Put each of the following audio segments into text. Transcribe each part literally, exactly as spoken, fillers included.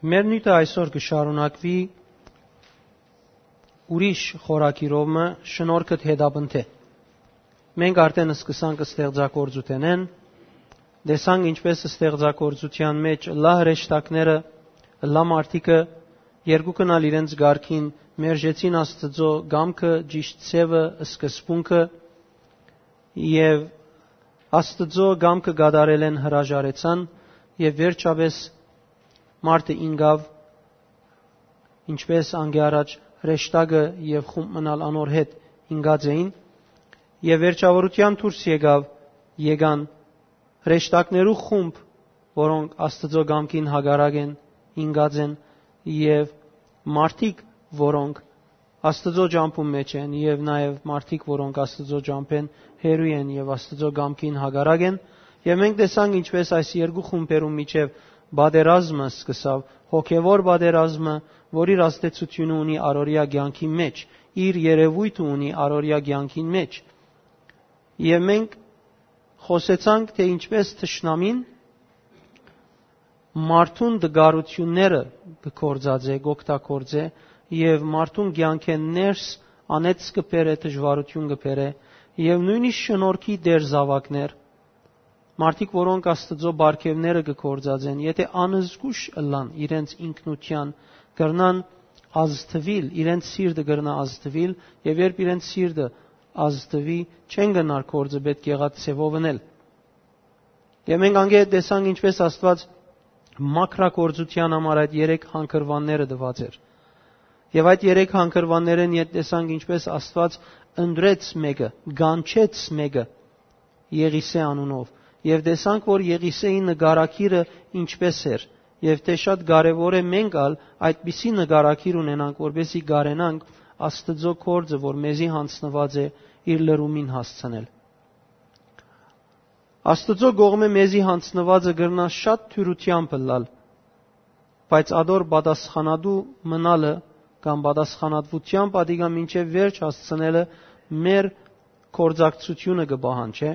Մեր նիւթը այսօր կը շարունակուի ուրիշ խորագիրով մը, շնորհքդ հետապնդէ։ Մենք արդեն սկսանք ստեղծագործութենէն, տեսանք ինչպէս ստեղծագործութեան մէջ լա հրեշտակները, լա մարդիկը, երկուքն ալ իրենց կարգին մերժեցին Աստծո կամքը, ճիշտ ձեւը, սկզբունքը, եւ Աստծո կամքը կատարելէն հրաժարեցան, եւ վերջապէս մարդը ինկաւ, ինչպէս անկէ առաջ հրեշտակը եւ խումբ մնալ անոր հետ ինկած էին, եւ վերջավորութեան դուրս եկաւ, եկան հրեշտակներու խումբ, որոնք Աստծո կամքին հակառակ են, ինկած են, եւ մարդիկ, որոնք Աստծո ճամբուն մէջ են, եւ նաեւ մարդիկ, որոնք Աստծո ճամբէն հեռու են եւ Աստծո կամքին հակառակ են, եւ մենք տեսանք, ինչպէս այս երկու խումբերուն միջեւ պատերազմը սկսաւ, հոգեվոր պատերազմը, որ իր ազդեցութիւնը ունի առօրեայ կեանքին մէջ, իր երեւոյթը ունի առօրեայ կեանքին մէջ։ Եւ մենք խօսեցանք, թէ ինչպէս թշնամին մարդուն տկարութիւնները կը գործածէ, կ'օգտագործէ, եւ մարդուն կեանքէն ներս անեծ կը բերէ, դժուարութիւն կը բերէ, եւ նոյնիսկ շնորհքի տեր զաւակներ, մարդիկ, որոնք Աստծո պարգեւները կը գործածեն, եթէ անզգուշ ըլլան իրենց ինքնութեան, կրնան ազդուիլ, իրենց սիրտը կրնայ ազդուիլ, եւ երբ իրենց սիրտը ազդուի, չեն կրնար գործը պէտք եղած ձեւով ընել։ Եւ մենք անգէ տեսանք, ինչպէս Աստուած մաքրագործութեան համար այդ երեք հանգրուանները տուած էր։ Եւ այդ երեք հանգրուաններէն յետ տեսանք, ինչպէս Աստուած ընտրեց մէկը, կանչեց մէկը Եղիսէ անունով։ Եւ տեսանք, որ Եղիսէի նկարագիրը ինչպէս էր, եւ թէ շատ կարեւոր է մենք ալ այդպիսի նկարագիր ունենանք, որպեսզի կարենանք Աստծո գործը, որ մեզի յանձնուած է, իր լրումին հասցնել։ Աստուծոյ կողմէ մեզի յանձնուածը կրնայ շատ դիւրութեամբ ըլլալ, բայց ատոր պատասխանատու մնալը կամ պատասխանատուութեամբ ատիկա մինչեւ վերջ հասցնելը մեր գործակցութիւնը կը պահանջէ,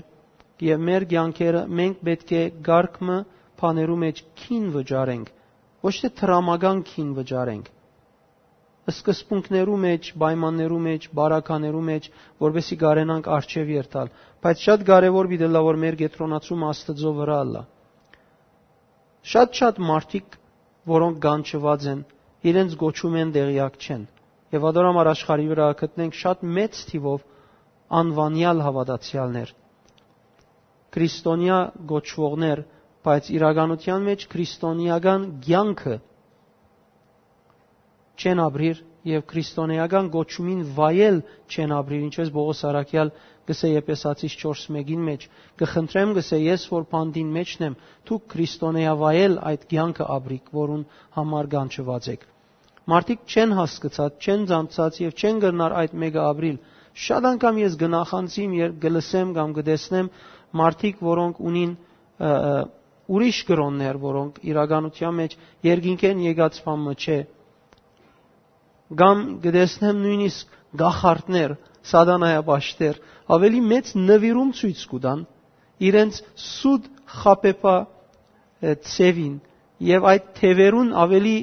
եւ մեր կեանքերը մենք պէտք է կարգ մը բաներու մէջ գին վճարենք, ոչ թէ դրամական գին վճարենք, սկզբունքներու մէջ, պայմաններու մէջ, բարականերու մէջ, որպեսզի կարենանք առջեւ երթալ։ Բայց շատ կարեւոր պիտի ըլլայ, որ մեր կեդրոնացումը Աստուծոյ վրայ ըլլայ։ Շատ-շատ մարդիկ, որոնք կանչուած են, իրենց կոչումէն տեղեակ չեն։ Եւ ատոր համար աշխարհի վրայ գտնենք շատ մեծ թիւով անուանեալ հաւատացեալներ, քրիստոնեայ կոչուողներ, բայց իրականութեան մէջ քրիստոնեական կեանքը չեն ապրիր եւ քրիստոնեական կոչումին վայել չեն ապրիր, ինչպես Պողոս առաքեալ կ'ըսէ Եփեսացիս չորս մէկին մէջ. «Կը խնդրեմ, կ'ըսէ, ես որ բանտին մէջն եմ, դուք քրիստոնեայ վայել այդ կեանքը ապրիք, որուն համար կանչուած էք»։ Մարդիկ չեն հասկցած, չեն ծանցած եւ չեն կրնար այդ մէկը ապրիլ։ Շատ անգամ ես կը նախանձիմ, երբ կը լսեմ կամ կը տեսնեմ մարդիկ, որոնք ունին, ը, ը, ուրիշ կրօններ, որոնք իրականութեան մէջ երկինքէն եկած բան մը չէ, կամ կը տեսնեմ նոյնիսկ կախարդներ, սատանայապաշտեր, ավելի մեծ նուիրում ցոյց կու տան իրենց սուտ խաբեբայ, ը, ձևին, եւ այդ թեւերուն ավելի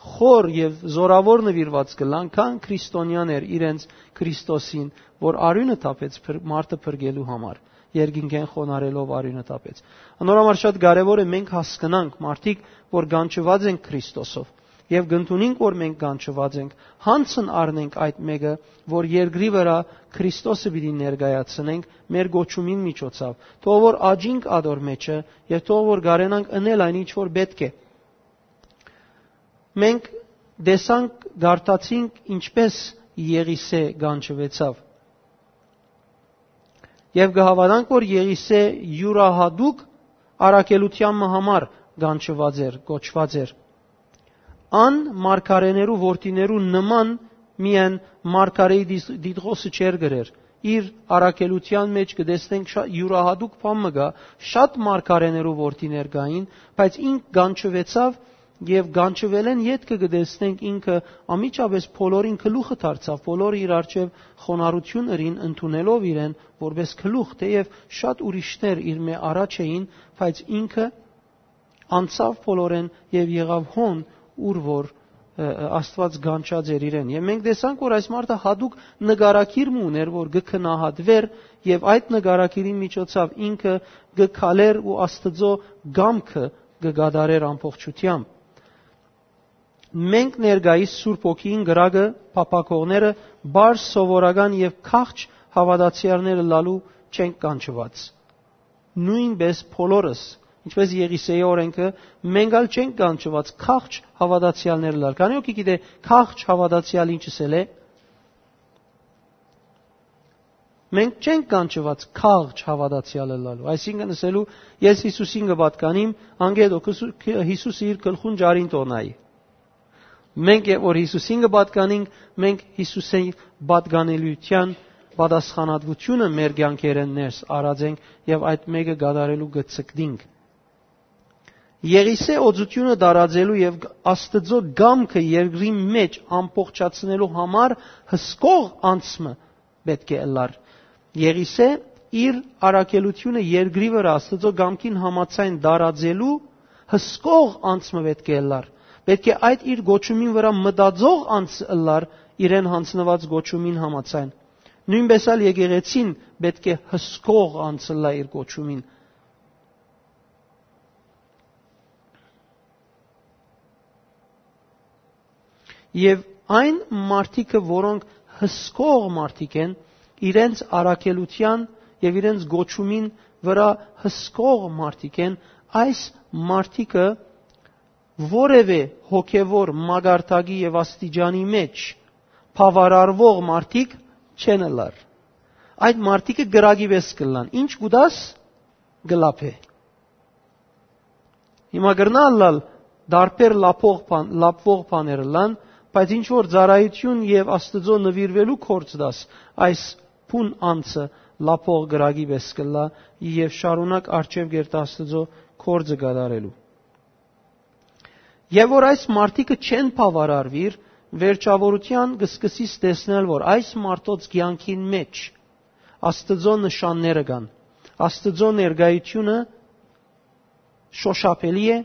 խոր եւ զորաւոր նուիրուած կ'ըլլան, քան քրիստոնեաներ իրենց Քրիստոսին, որ արիւնը թափեց փր-, մարդը փրկելու համար, երկինքէն խոնարհելով արիւնը թափեց։ Անոր համար շատ կարեւոր է մենք հասկնանք, մարդիկ, որ կանչուած են Քրիստոսով, եւ կ'ընդունենք, որ մենք կանչուած ենք, յանձն առնենք այդ մէկը, որ երկրի վրայ Քրիստոսը պիտի ներկայացնենք մեր կոչումին միջոցով, թող որ աճինք ատոր մէջը եւ թող որ կարենանք ընել այն, ինչ որ պէտք է։ Մենք տեսանք, կարդացինք, ինչպէս Եղիսէ կանչուեցաւ։ Եւ կը հաւատանք, որ Եղիսէ իւրահատուկ առաքելութեան մը համար կանչուած էր, կոչուած էր։ Ան մարգարէներու որդիներու նման միայն մարգարէի դիս-, դիտղոսը չէր գրեր։ Իր առաքելութեան մէջ կը տեսնենք շա-, իւրահատուկ բան մը կայ, շատ մարգարէներու որդիներ կային, բայց ինք կանչուեցաւ եւ կանչուելէն ետքը կը տեսնենք ինքը անմիջապէս բոլորին գլուխը դարձաւ, բոլորը իր առջեւ խոնարհութիւն ըրին ընդունելով իրեն որպէս գլուխ, թէեւ շատ ուրիշներ իր մէ առաջ էին, բայց ինքը անցաւ բոլորէն եւ եղաւ հոն, ուր որ, ը, ը, Աստուած կանչած էր իրեն։ Եւ մենք տեսանք, որ այս մարդը յատուկ նկարագիր մը ուներ, որ կը գնահատուէր, եւ այդ նկարագիրին միջոցաւ ինքը կը քալէր ու Աստուծոյ կամքը կը կատարէր ամբողջութեամբ։ Մենք ներկայիս Սուրբ Հոգիին կրակը փափաքողները պարզ սովորական եւ քաղջ հաւատացեալներ ըլլալու չենք կանչուած։ Նոյնպէս բոլորս, ինչպէս Եղիսէի օրէնքը, մենք ալ չենք կանչուած քաղջ հաւատացեալներ ըլլալ։ Քանի՞ հոգի գիտէ քաղջ հաւատացեալ ինչ ըսել է։ Մենք չենք կանչուած քաղջ հաւատացեալ ըլլալու, այսինքն՝ ըսելու՝ «Ես Յիսուսին կը պատկանիմ», անկէ դոք Յիսու-, Յիսուսը իր գլխուն ճարին տոնայի։ Մենք երբ որ Յիսուսին կը պատկանինք, մենք Յիսուսին պատկանելիության պատասխանատվութիւնը մեր կեանքերէն ներս առած ենք եւ այդ մէկը կատարելու կը ցկտինք։ Եղիսէ օծութիւնը տարածելու եւ Աստուծոյ կամքը երկրի մէջ ամբողջացնելու համար հսկող անձ մը պէտք է ըլլար։ Եղիսէ իր առաքելութիւնը երկրի վրայ Աստուծոյ կամքին համաձայն տարածելու հսկող անձ մը պէտք է ըլլար։ Պէտք է այդ իր կոչումին վրայ մտածող անձ ըլլար իրեն յանձնուած կոչումին համաձայն։ Նոյնպէս ալ եկեղեցին պէտք է հսկող անձ ըլլայ իր կոչումին։ Եւ այն մարդիկը, որոնք հսկող մարդիկ են, իրենց առաքելութեան եւ իրենց կոչումին վրայ հսկող մարդիկ են, այս մարդիկը որեւէ հոգեվոր մակարդակի եւ աստիճանի մէջ բաւարարուող մարդիկ չեն ըլլար։ Այդ մարդիկը կրակի պէս կ'ըլլան։ Ինչ կուտաս, կը լափէ։ Հիմա կրնայ ըլլալ տարբեր լափող բան-, լափվող բաներ ըլլան, բայց ինչ որ ծառայութիւն եւ Աստուծոյ նուիրուելու գործ դաս, այս բուն անձը լափող կրակի պէս կ'ըլլայ եւ շարունակ առջեւ կ'երթայ Աստուծոյ գործը կատարելու։ Եւ որ այս մարդիկը չեն բաւարարուիր, վերջաւորութեան կը սկսիս տեսնել, որ այս մարդոց կեանքին մէջ Աստուծոյ նշանները կան, Աստուծոյ ներկայութիւնը շոշափելի է,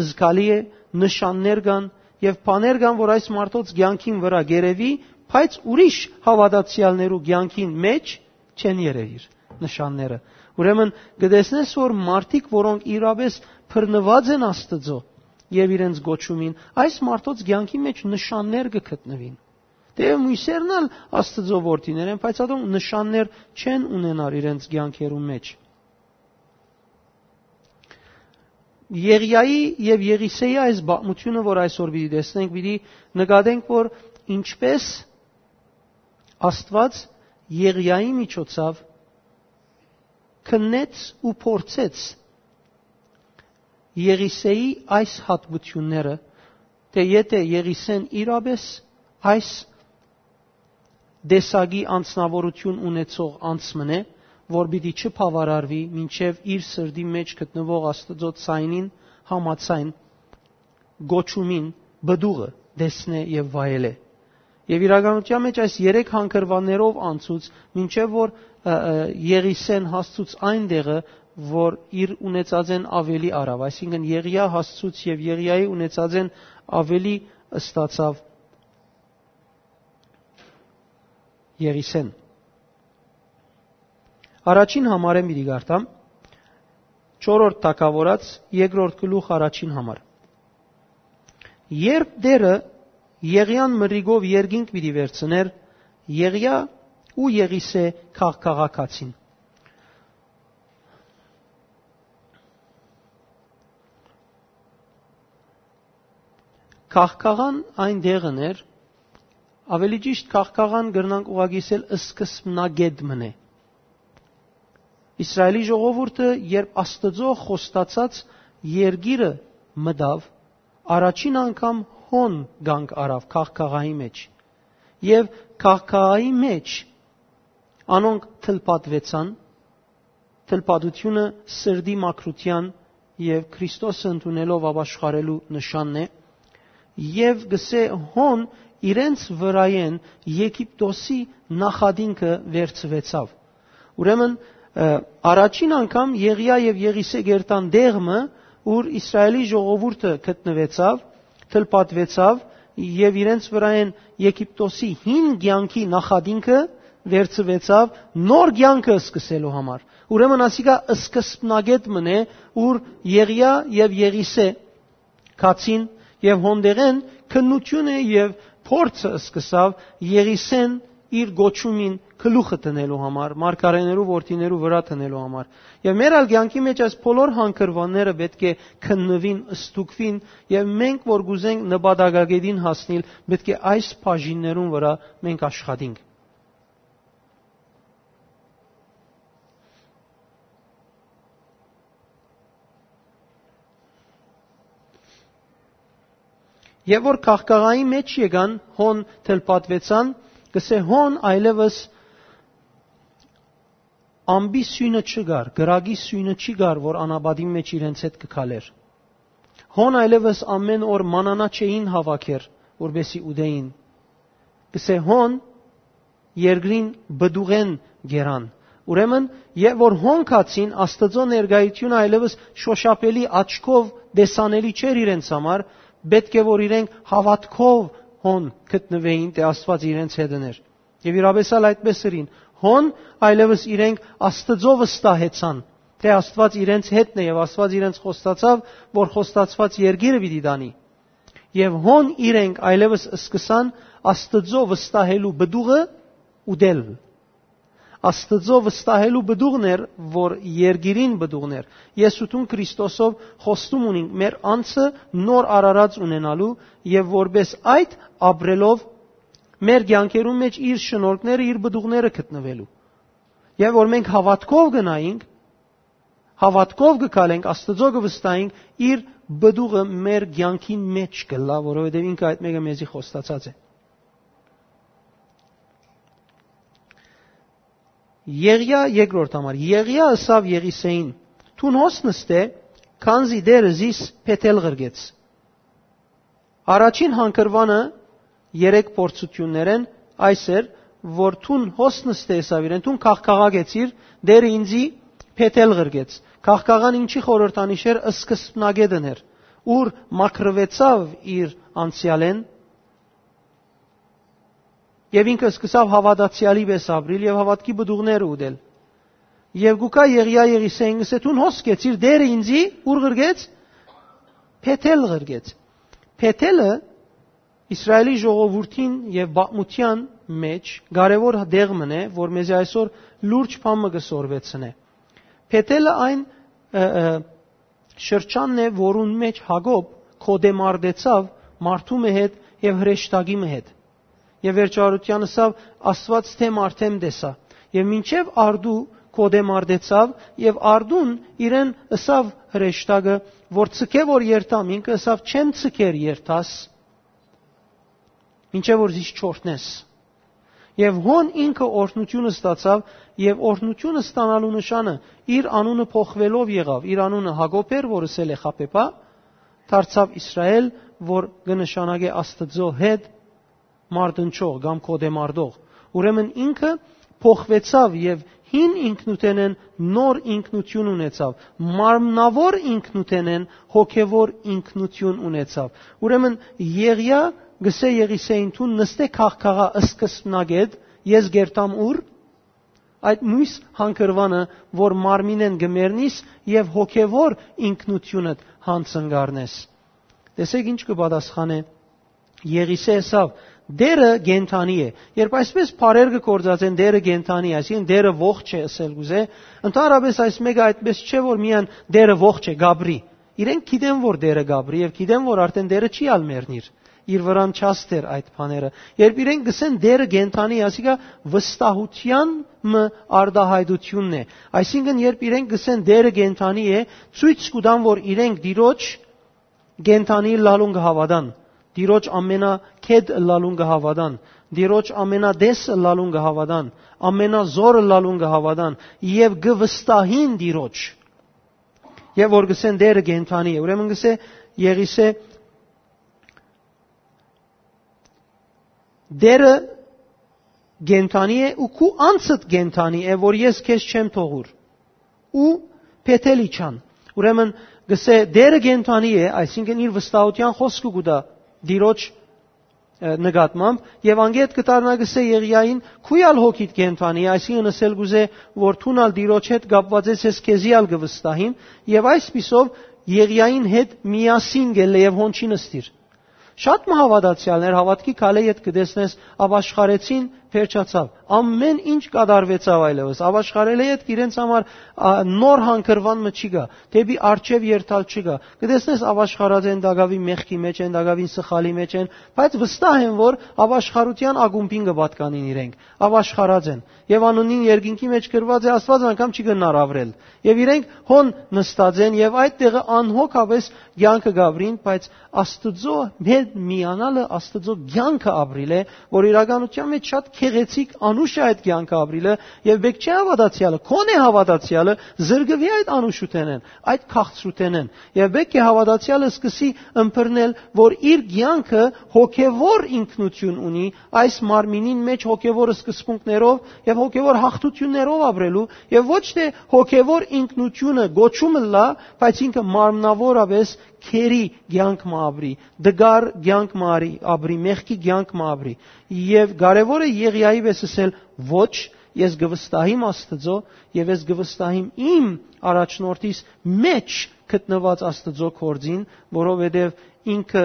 զգալի է, նշաններ կան եւ բաներ կան, որ այս մարդոց կեանքին վրայ կ'երեւի, բայց ուրիշ հաւատացեալներու կեանքին մէջ չեն երեւիր նշանները։ Ուրեմն կը տեսնես, որ մարդիկ, որոնք իրապէս բռնուած են Աստուծոյ եւ իրենց կոչումին, այս մարդոց կեանքի մէջ նշաններ կը գտնուին։ Թէեւ միւսերն ալ Աստուծոյ որդիներ են, բայց ատոնք նշաններ չեն ունենար իրենց կեանքերուն մէջ։ Եղիայի եւ Եղիսեի այս պատմութիւնը, որ այսօր պիտի տեսնենք, պիտի նկատենք, որ ինչպէս Աստուած Եղիայի միջոցաւ քննեց ու փորձեց Եղիսեի այս հատկությունները, թէ եթէ Եղիսեն իրապէս այս տեսակի անձնաւորութիւն ունեցող անձ մըն է, որ պիտի չբաւարարուի մինչեւ իր սրտի մէջ գտնուող Աստուծոյ ձայնին համաձայն կոչումին պտուղը տեսնէ եւ վայելէ։ Եւ իրականութեան մէջ այս երեք հանգրուաններով անցուց, մինչեւ որ, ը, ը, Եղիսեն հասցուց այն տեղը, որ իր ունեցածէն աւելի առաւ, այսինքն՝ Եղիա հասցուց եւ Եղիայի ունեցածէն աւելի ստացաւ Եղիսեն։ Առաջին համարէն պիտի կարդամ, չորրորդ թագաւորաց, երկրորդ գլուխ, առաջին համար։ Երբ Տէրը Եղիան մրրիկով երկինք պիտի վերցնէր, Եղիա ու Եղիսէ քաղ-, քաղաքացին։ Քաղքաղան այն տեղն էր, ավելի ճիշտ, քաղքաղան կրնանք ուղղակի ասել սկզբնակետ մըն է։ Իսրայելի ժողովուրդը, երբ Աստուծոյ խոստացած երկիրը մտաւ, առաջին անգամ հոն կանգ առաւ քաղքաղայի մէջ։ Եւ քաղքաղայի մէջ անոնք թլպատուեցան, թլպատությունը սրտի մաքրութեան եւ Քրիստոսը ընդունելով ապաշխարելու նշանն է, եւ գսե հոն իրենց վրայէն Եգիպտոսի նախատինքը վերցուեցաւ։ Ուրեմն, ը, առաջին անգամ Եղիա եւ Եղիսէ կ'երթան տեղ մը, ուր Իսրայելի ժողովուրդը գտնուեցաւ, թլպատուեցաւ եւ իրենց վրայէն Եգիպտոսի հին կեանքի նախատինքը վերցուեցաւ նոր կեանքը սկսելու համար։ Ուրեմն ասիկա սկզբնակետ մըն է, ուր Եղիա եւ Եղիսէ գացին, եւ հոն դեղէն քննութիւնը եւ փորձը սկսաւ Եղիսէն իր գոչումին գլուխը դնելու համար, մարգարէներու որդիներու վրայ դնելու համար։ Եւ մեր ալ կեանքի մէջ այս բոլոր հանգրուանները պէտք է քննուին, ստուգուին, եւ մենք որ կ'ուզենք նպատակագետին հասնիլ, պէտք է այս բաժիններուն վրայ մենք աշխատենք։ Եւ որ քաղաքաղայի մէջ եկան, հոն թլպատուեցան, կսէ հոն այլեւս ամպի սիւնը չկար, կրակի սիւնը չի կար, որ անապատին մէջ իրենց հետ կը քալէր։ Հոն այլեւս ամէն օր մանանա չէին հաւաքեր, որպեսզի ուտէին։ Կսէ հոն երկրին պտուղէն գերան։ Ուրեմն, եւ որ հոն գացին, Աստուծոյ ներկայութիւնը այլեւս շոշափելի աչքով տեսանելի չէր իրենց համար, պէտք է որ իրենք հաւատքով հոն գտնուէին, թէ Աստուած իրենց հետն էր։ Եւ իրապէս ալ այդպէս ըրին։ Հոն այլեւս իրենք Աստուծոյ վստահեցան, թէ Աստուած իրենց հետն է եւ Աստուած իրենց խոստացաւ, որ խոստացուած երկիրը պիտի տանի։ Եւ հոն իրենք այլեւս սկսան Աստուծոյ վստահելու պտուղը ուտել։ Աստուծոյ վստահելու պտուղն էր, որ երկիրին պտուղն էր։ Ես ու դուն Քրիստոսով խոստում ունենք մեր անձը նոր արարած ունենալու եւ որպէս այդ ապրելով մեր կեանքերուն մէջ իր շնորհքները, իր պտուղները գտնուելու։ Եւ որ մենք հաւատքով գնայինք, հաւատքով կը քալենք, Աստուծոյ կը վստահենք, իր պտուղը մեր կեանքին մէջ կ'ըլլայ, որովհետեւ ինքը այդ մէկը մեզի խոստացած է։ Եղիա երկրորդ համար։ Եղիա ըսաւ Եղիսէին. «Դուն հոս նստէ, քանզի Տէրը զիս Բեթել ղրկեց»։ Առաջին հանգրուանը երեք փորձութիւններէն այս էր, որ դուն հոս նստէ ըսաւ իրեն, դուն քաղաքաղագեցիր, Տէրը ինծի Բեթել ղրկեց։ Քաղաքաղան ինչի խորհրդանիշ էր, սկզբնակետն էր, ուր մաքրուեցաւ իր անցեալէն, եւ ինքը սկսաւ հաւատացեալի պէս ապրիլ եւ հաւատքի պտուղները ուտել։ Եվ գուկա Եղիա Եղիսէին կսէ, դուն հոս կեցիր, Տէրը ինծի ուր ղրկեց, Բեթել ղրկեց։ Բեթելը Իսրայելի ժողովուրդին եւ պատմութեան մէջ կարեւոր տեղ մըն է, որ մեզի այսօր լուրջ բան մը կը սորվեցնէ։ Բեթելը այն, ը, ը, շրջանն է, որուն մէջ Յակոբ կոտեմարտեցաւ մարդու մը հետ եւ հրեշտակի մը հետ։ Եւ վերջարարութեան ըսաւ. «Աստուած թէ մարդեմ տեսայ»։ Եւ մինչեւ արդու կոտեմարտեցաւ, եւ արդուն իրեն ըսաւ հրեշտակը, որ ցկէ որ երթամ, ինքը ըսաւ. «Չեմ ցկեր երթաս, մինչեւ որ զիս չօրհնես»։ Եւ հոն ինքը օրհնութիւն ստացաւ, եւ օրհնութիւն ստանալու նշանը իր անունը փոխուելով եղաւ, իր անունը Յակոբ էր, որ ըսել է Խաբեբա, դարձաւ Իսրայէլ, որ կը նշանակէ Աստուծոյ հետ մարտնչող կամ կոտեմարտող։ Ուրեմն ինքը փոխուեցաւ եւ հին ինքնութենէն նոր ինքնութիւն ունեցաւ, մարմնաւոր ինքնութենէն հոգեւոր ինքնութիւն ունեցաւ։ Ուրեմն Եղիա գսէ Եղիսէին. «Դուն նստէ քաղաքաղա սկզբնակետ, ես գերտամ ուր»։ Այդ միւս հանգրուանը, որ մարմինէն կը մեռնիս եւ հոգեւոր ինքնութիւնդ յանցնկարնես։ Տեսեք ինչ կը պատասխանէ Եղիսէ ըսաւ. «Տէրը կենդանի է»։ Երբ այսպես բառեր կը գործածեն, «Տէրը կենդանի է», այսինքն՝ «Տէրը ողջ է» ըսել կուզէ, ընդհանրապես այս մէկը այդպես չէ, որ միայն «Տէրը ողջ է», կապրի։ Իրենք գիտեն, որ Տէրը կապրի, եւ գիտեն, որ արդեն Տէրը չի ալ մեռնիր։ Իր վրան չասթեր այդ բաները։ Երբ իրենք գսեն «Տէրը կենդանի է», ասիկա վստահութեան մը արտահայտությունն է։ Այսինքն, երբ իրենք գսեն «Տէրը կենդանի է», ցոյց կու տան, որ իրենք Տիրոջ կենդանի ըլլալուն կը հաւատան, Տիրոջ ամենագետ ըլլալուն կը հաւատան, Տիրոջ ամենատես ըլլալուն կը հաւատան, ամենազոր ըլլալուն կը հաւատան եւ կը վստահին Տիրոջ։ Եւ որ գսեն «Տէրը կենդանի է»։ Ուրեմն գսէ Եղիսէ. «Տէրը կենդանի է ու քու անձդ կենդանի է, որ ես քեզ չեմ թողուր»։ Ու Բեթել իջան։ Ուրեմն գսէ «Տէրը կենդանի է», այսինքն՝ իր վստահութեան խօսքը կու տայ Տիրոջ, ը, նկատմամբ, եւ անգետ կը դառնայ, կ'ըսէ Եղիային. «Քու ալ հոգիդ կենդանի», այսինքն ըսել կ'ուզէ, որ դուն ալ Տիրոջ հետ կապուած ես, ես քեզի ալ կը վստահիմ, եւ այսպիսով Եղիային հետ միասին գելլէ եւ հոն չի նստիր։ Շատ մը հաւատացեալներ, հաւատքի քալէ յետ կը տեսնես, ապաշխարեցին, վերջացաւ։ Ամեն ինչ կատարուեցաւ այլեւս։ Ապաշխարելէ յետք իրենց համար, ա, նոր հանգրուան մը չի գայ, դէպի առջեւ երթալ չի գայ։ Կը տեսնես, ապաշխարած են, տակաւին մեղքի մէջ են, տակաւին սխալի մէջ են, բայց վստահ են, որ ապաշխարութեան ակումբին կը պատկանին իրենք։ Ապաշխարած են։ Եւ անունին երկինքի մէջ գրուած է, Աստուած անգամ չի գնար ապրել։ Եւ իրենք հոն նստած են եւ այդ տեղը անհոգապէս կեանքը կ'ապրին, բայց Աստուծոյ հետ միանալը Աստուծոյ կեանքը ապրիլ է, որ իրականութեան մէջ շատ գեղեցիկ անուշ է այդ կեանքը ապրիլը, եւ պէտք չէ հաւատացեալը, քոնէ հաւատացեալը զրկուի այդ անուշութենէն, այդ քաղցրութենէն, եւ պէտք է հաւատացեալը սկսի ըմբռնել, որ իր կեանքը հոգեվոր ինքնություն ունի, այս մարմինին մէջ հոգեվոր սկզբունքներով եւ հոգեվոր հաղթութիւններով ապրելու, եւ ոչ թէ հոգեվոր ինքնությունը գոչում ըլլայ, բայց ինքը մարմնավորապէս քերի կեանք մը ապրի, դգար կեանք մը արի, ապրի, մեղքի կեանք մը ապրի։ Եւ կարեւոր է Եղիայի վէս ըսել. «Ոչ, ես կը վստահիմ Աստուծոյ եւ ես կը վստահիմ իմ առաջնորդիս մէջ գտնուած Աստուծոյ գործին», որովհետեւ ինքը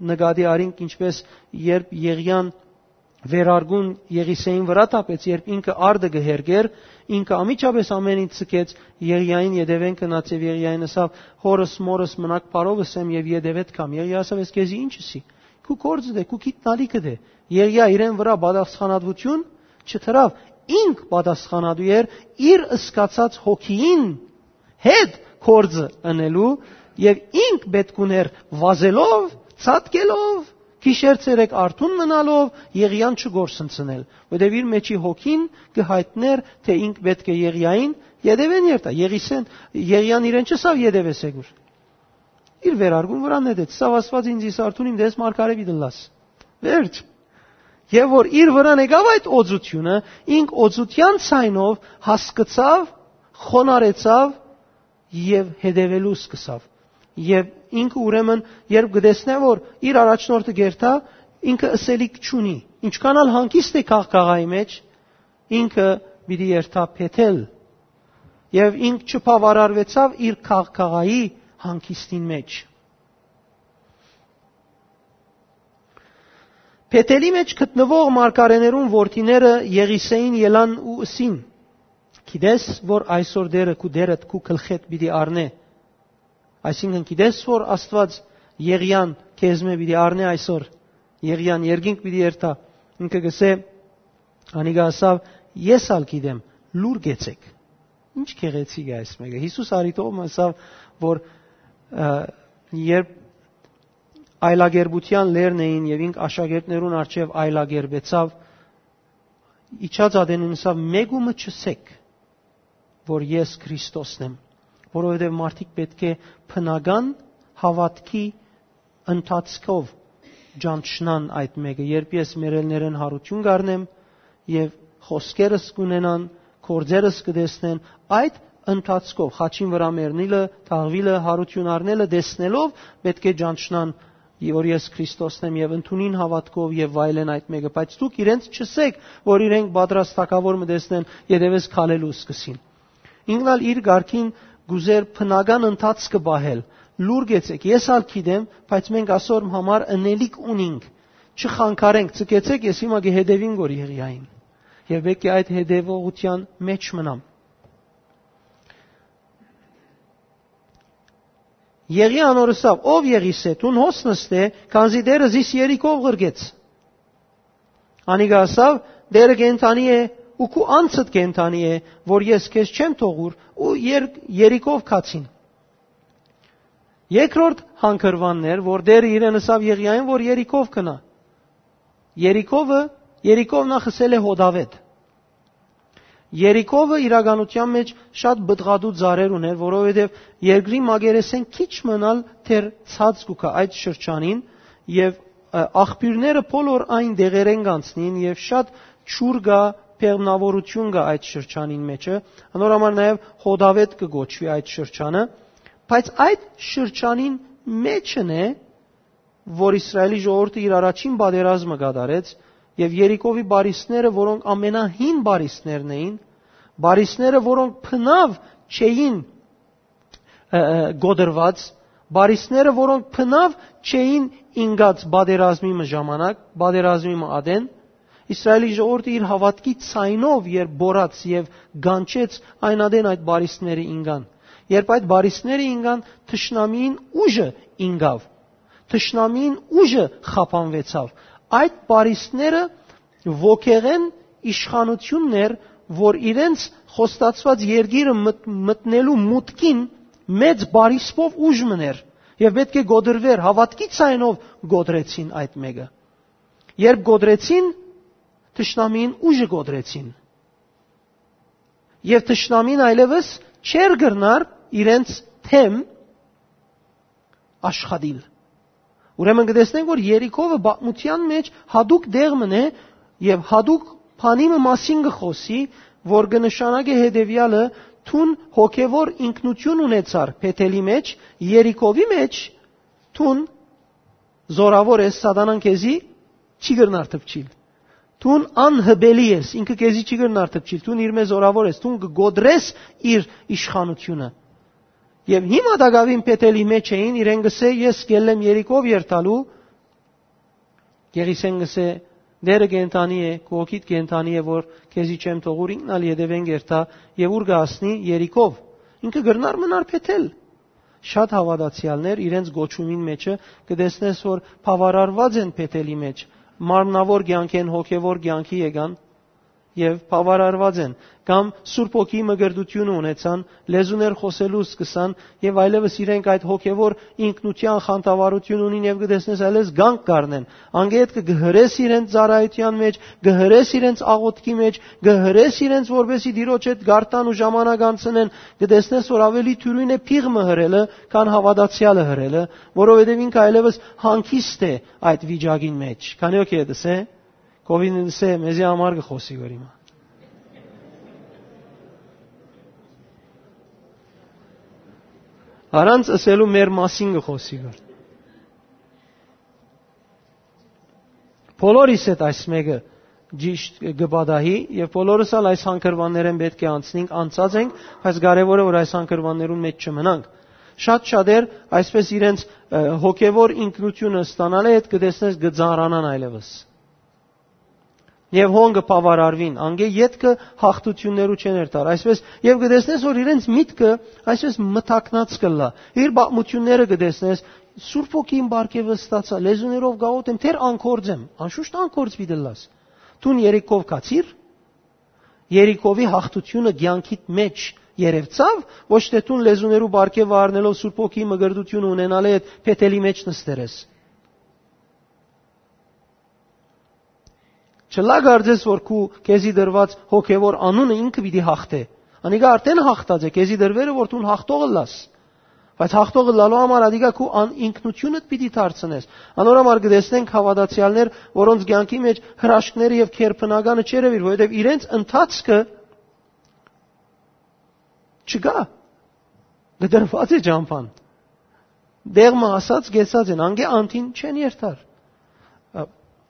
նկատի առինք, ինչպէս երբ Եղիան վերարկուն Եղիսեին վրայ թափեց, երբ ինքը արտը կը հերկէր, ինքը անմիջապէս ամէն ինչ ձգեց, Եղիային ետեւէն գնաց եւ Եղիային ըսաւ. «Հօրս, մօրս, մնաք բարով, ըսեմ եւ ետեւէդ գամ»։ Եղիա ըսաւ. «Ես քեզի ինչ ըսի, քու գործդ է, քու գիտնալիքդ է»։ Եղիա իրեն վրայ պատասխանատվութիւն չդրաւ, ինք պատասխանատու էր իր սկացած հոգիին հետ գործը ընելու, եւ ինք պէտք ունէր վազելով, ցատկելով, գիշեր ցերեկ արթուն մնալով, Եղիան չկորսնցնել, որտեւ իր մէջի հոգին կը յայտնէր, թէ ինք պէտք է Եղիային ետեւէն երթայ, Եղիսեն, Եղիան իրեն չըսաւ. «Ետեւէս եկուր»։ Իր վերարկուն վրան նետեց, սա Աստուած ինձ իս արթուն իմ դես մարգարէ պիտի լաս։ Վերջ։ Եւ որ իր վրան եկաւ այդ օծութիւնը, ինք օծութեան ցայնով հասկցաւ, խոնարհեցաւ եւ հետեւելու սկսաւ։ Եւ ինքը ուրեմն, երբ կը տեսնէ, որ իր առաջնորդը կերթայ, ինքը ըսելիք չունի։ Ինչքան ալ հանգիստ է քաղաքաղայի մէջ, ինքը պիտի երթայ Բեթել։ Եւ ինք չբաւարարուեցաւ իր քաղաքաղայի հանգիստին մէջ։ Բեթելի մէջ գտնուող մարգարէներուն որդիները Եղիսեին ելան ու ըսին. «Գիտես, որ այսօր Տէրը քու Տէրդ քու գլխէդ պիտի առնէ»։ Այսինքն, գիտես, որ Աստուած Եղիան քեզմէ պիտի առնէ այսօր, Եղիան երկինք պիտի երթայ։ Ինքը կ'ըսէ, անիկա ըսաւ. «Ես ալ գիտեմ, լուր կեցեք»։ Ինչ գեղեցիկ է այս մէկը։ Յիսուս արիտով մը ըսաւ, որ, ը, երբ այլակերպութեան լերն էին եւ ինք աշակերտներուն առջեւ այլակերպեցաւ, իջած ատեն ըսաւ. «Մէկու մը չըսեք, որ ես Քրիստոսն եմ», որովհետեւ մարդիկ պէտք է բնական հաւատքի ընթացքով ճանչնան այդ մէկը, երբ ես մեռելներէն յարութիւն կ'առնեմ եւ խօսքերս կ'ունենան, գործերս կը տեսնեն, այդ ընթացքով խաչին վրայ մեռնիլը, թաղուիլը, յարութիւն առնելը տեսնելով պէտք է ճանչնան, որ ես Քրիստոսն եմ, եւ ընդունին հաւատքով եւ վայելեն այդ մէկը, բայց դուք իրենց չըսեք, որ իրենք պատրաստակաւոր մը տեսնեն, ետեւէս քալելու սկսին։ Ինքն ալ իր կարգին կ'ուզէր բնական ընթացքը պահել։ Լուր կեցեք, ես ալ գիտեմ, բայց մենք ասոր համար ընելիք ունինք։ Չխանգարենք, ցկեցեք, ես հիմա կը հետեւին գոր Եղիային։ Եւ պէտք է այդ հետեւողութեան մէջ մնամ։ Եղիան անոր ըսաւ. «Ով Եղիսե, դուն հոս նստէ, քանզի Տէրը զիս երիկով ղրկեց»։ Անիկա ըսաւ. «Տէրը կենդանի է ու քու անձդ կենդանի է, որ ես քեզ չեմ թողուր», ու եր-, երիկով գացին։ Երկրորդ հանգրուանն էր, որ Տէրը իրեն ըսաւ Եղիային, որ երիկով գնայ։ Երիկովը, Երիկով նախ ըսել է հոդավետ։ Երիկովը իրականութեան մէջ շատ պտղատու ծառեր ունէր, որովհետեւ երկրի մակերեսէն քիչ մնալ դեռ ցած կու գայ այդ շրջանին, եւ, ը, աղբիւրները բոլոր այն դեղերէն կանցնին, եւ շատ ջուր կայ բեղմնաւորութիւն կայ այդ շրջանին մէջը, անոր համար նաեւ հոդավետ կը կոչուի այդ շրջանը, բայց այդ շրջանին մէջն է, որ Իսրայելի ժողովուրդը իր առաջին պատերազմը կատարեց, եւ Երիքովի պարիսները, որոնք ամենահին պարիսներն էին, պարիսները, որոնք բնաւ չէին, ը, ը, կոտրուած, պարիսները, որոնք բնաւ չէին ինկած պատերազմի մը ժամանակ, պատերազմի մը ատեն, Իսրայելի ժողովուրդը իր հաւատքի ցայնով երբ բորած եւ գանչեց, այն ատեն այդ պարիսները ինկան։ Երբ այդ պարիսները ինկան, թշնամիին ուժը ինկաւ, թշնամիին ուժը խափանուեցաւ։ Այդ պարիսները ոգեղէն իշխանութիւնն էր, որ իրենց խոստացուած երկիրը մտ-, մտնելու մուտքին մեծ պարիսպով ուժ մըն էր եւ պէտք է կոտրուէր, հաւատքի ցայնով կոտրեցին այդ մէկը։ Երբ կոտրեցին, թշնամիին ուժը կոտրեցին եւ թշնամին այլեւս չէր կրնար իրենց թեմ աշխատիլ։ Ուրեմն կը տեսնենք, որ Երիքովը պատմութեան մէջ յատուկ տեղ մըն է եւ յատուկ բանի մը մասին կը խօսի, որ կը նշանակէ հետեւեալը. դուն հոգեվոր ինքնութիւն ունեցար Բեթելի մէջ, Երիքովի մէջ դուն զորաւոր ես, սատանան քեզի չի կրնար թպչիլ։ Դուն անհպելի ես, ինքը քեզի չի կրնար թպչիլ, դուն իրմէ զորաւոր ես, դուն կը կոտրես իր իշխանութիւնը։ Եւ հիմա տակաւին Բեթելի մէջ էին, իրեն կ'ըսէ. «Ես կ'ելլեմ Երիքով երթալու»։ Գեղիսեն կ'ըսէ. «Տէրը կենդանի է, քու հոգիդ կենդանի է, որ քեզի չեմ թողուր, ինքն ալ ետեւէն կ'երթայ եւ ուր կը հասնի, Երիքով»։ Ինքը կրնար մնար Բեթել։ Շատ հաւատացեալներ իրենց կոչումին մէջը կը տեսնես, որ բաւարարուած են Բեթելի մէջ, մարմնաւոր կեանքէն հոգեվոր կեանքի եկան եւ բաւարարուած են, կամ Սուրբ Հոգիի մկրտութիւնը ունեցան, լեզուներ խօսելու սկսան եւ այլեւս իրենք այդ հոգեվոր ինքնութեան խանդավառութիւն ունին եւ կը տեսնես այլեւս կանգ կ'առնեն։ Անկէ ետքը կը հրես իրենց ծառայութեան մէջ, կը հրես իրենց աղօթքի մէջ, կը հրես իրենց, որպէսզի Տիրոջ հետ գարտան ու ժամանակ անցնեն, կը տեսնես, որ աւելի դիւրին է փիղ մը հրելը, քան հաւատացեալը հրելը, որովհետեւ ինքը այլեւս հանգիստ է այդ վիճակին մէջ։ Քանի՞ հոգի է դսե, քովին դսե, մեզի համար կը խօսի որ հիմա։ Առանց ըսելու մեր մասին կը խօսի որ։ Բոլորիս հետ այս մէկը ճիշտ կը պատահի, եւ բոլորս ալ այս հանգրուաններէն պէտք է անցնենք, անցած ենք, բայց կարեւոր է, որ այս հանգրուաններուն մէջ չմնանք։ Շատ շատեր այսպես իրենց, ը, հոգեվոր ինքնութիւնը ստանալը հետ կը տեսնես կը ծանրանան այլեւս։ Եւ հոն կը բաւարարուին, անկէ ետքը հաղթութիւններու չեն երթար, այսպես, եւ կը տեսնես, որ իրենց միտքը այսպես մթակնած կ'ըլլայ։ Իր պատմութիւնները կը տեսնես, Սուրբ Հոգին պարգեւը ստացայ, լեզուներով կ'աղօթեմ, դեռ անկորձ եմ, անշուշտ անկորձ պիտի ըլլաս։ Դուն Երիքով գացի՞ր, Երիքովի հաղթութիւնը կեանքիդ մէջ երեւցա՞վ, ոչ թէ դուն լեզուներու պարգեւը առնելով Սուրբ Հոգի մկրտութիւնը ունենալը հետ Բեթելի մէջ նստեր ես։ Չլայ կարծես, որ քու քեզի դրուած հոգեվոր անունը ինքը պիտի հաղթէ։ Անիկա արդեն հաղթած է, քեզի դրուեր է, որ դուն հաղթող ըլլաս։ Բայց հաղթող ըլլալու համար ադիկա քու ան-, ինքնութիւնդ պիտի դարձնես։ Անոր համար կը տեսնենք հաւատացեալներ, որոնց կեանքի մէջ հրաշքները եւ քերբնականը չերեւիր, որովհետեւ իրենց ընթացքը չկայ, կտրուած է ճամբան։ Դեղ մը հասած, կեցած են, անկէ անդին չեն երթար։ Ա,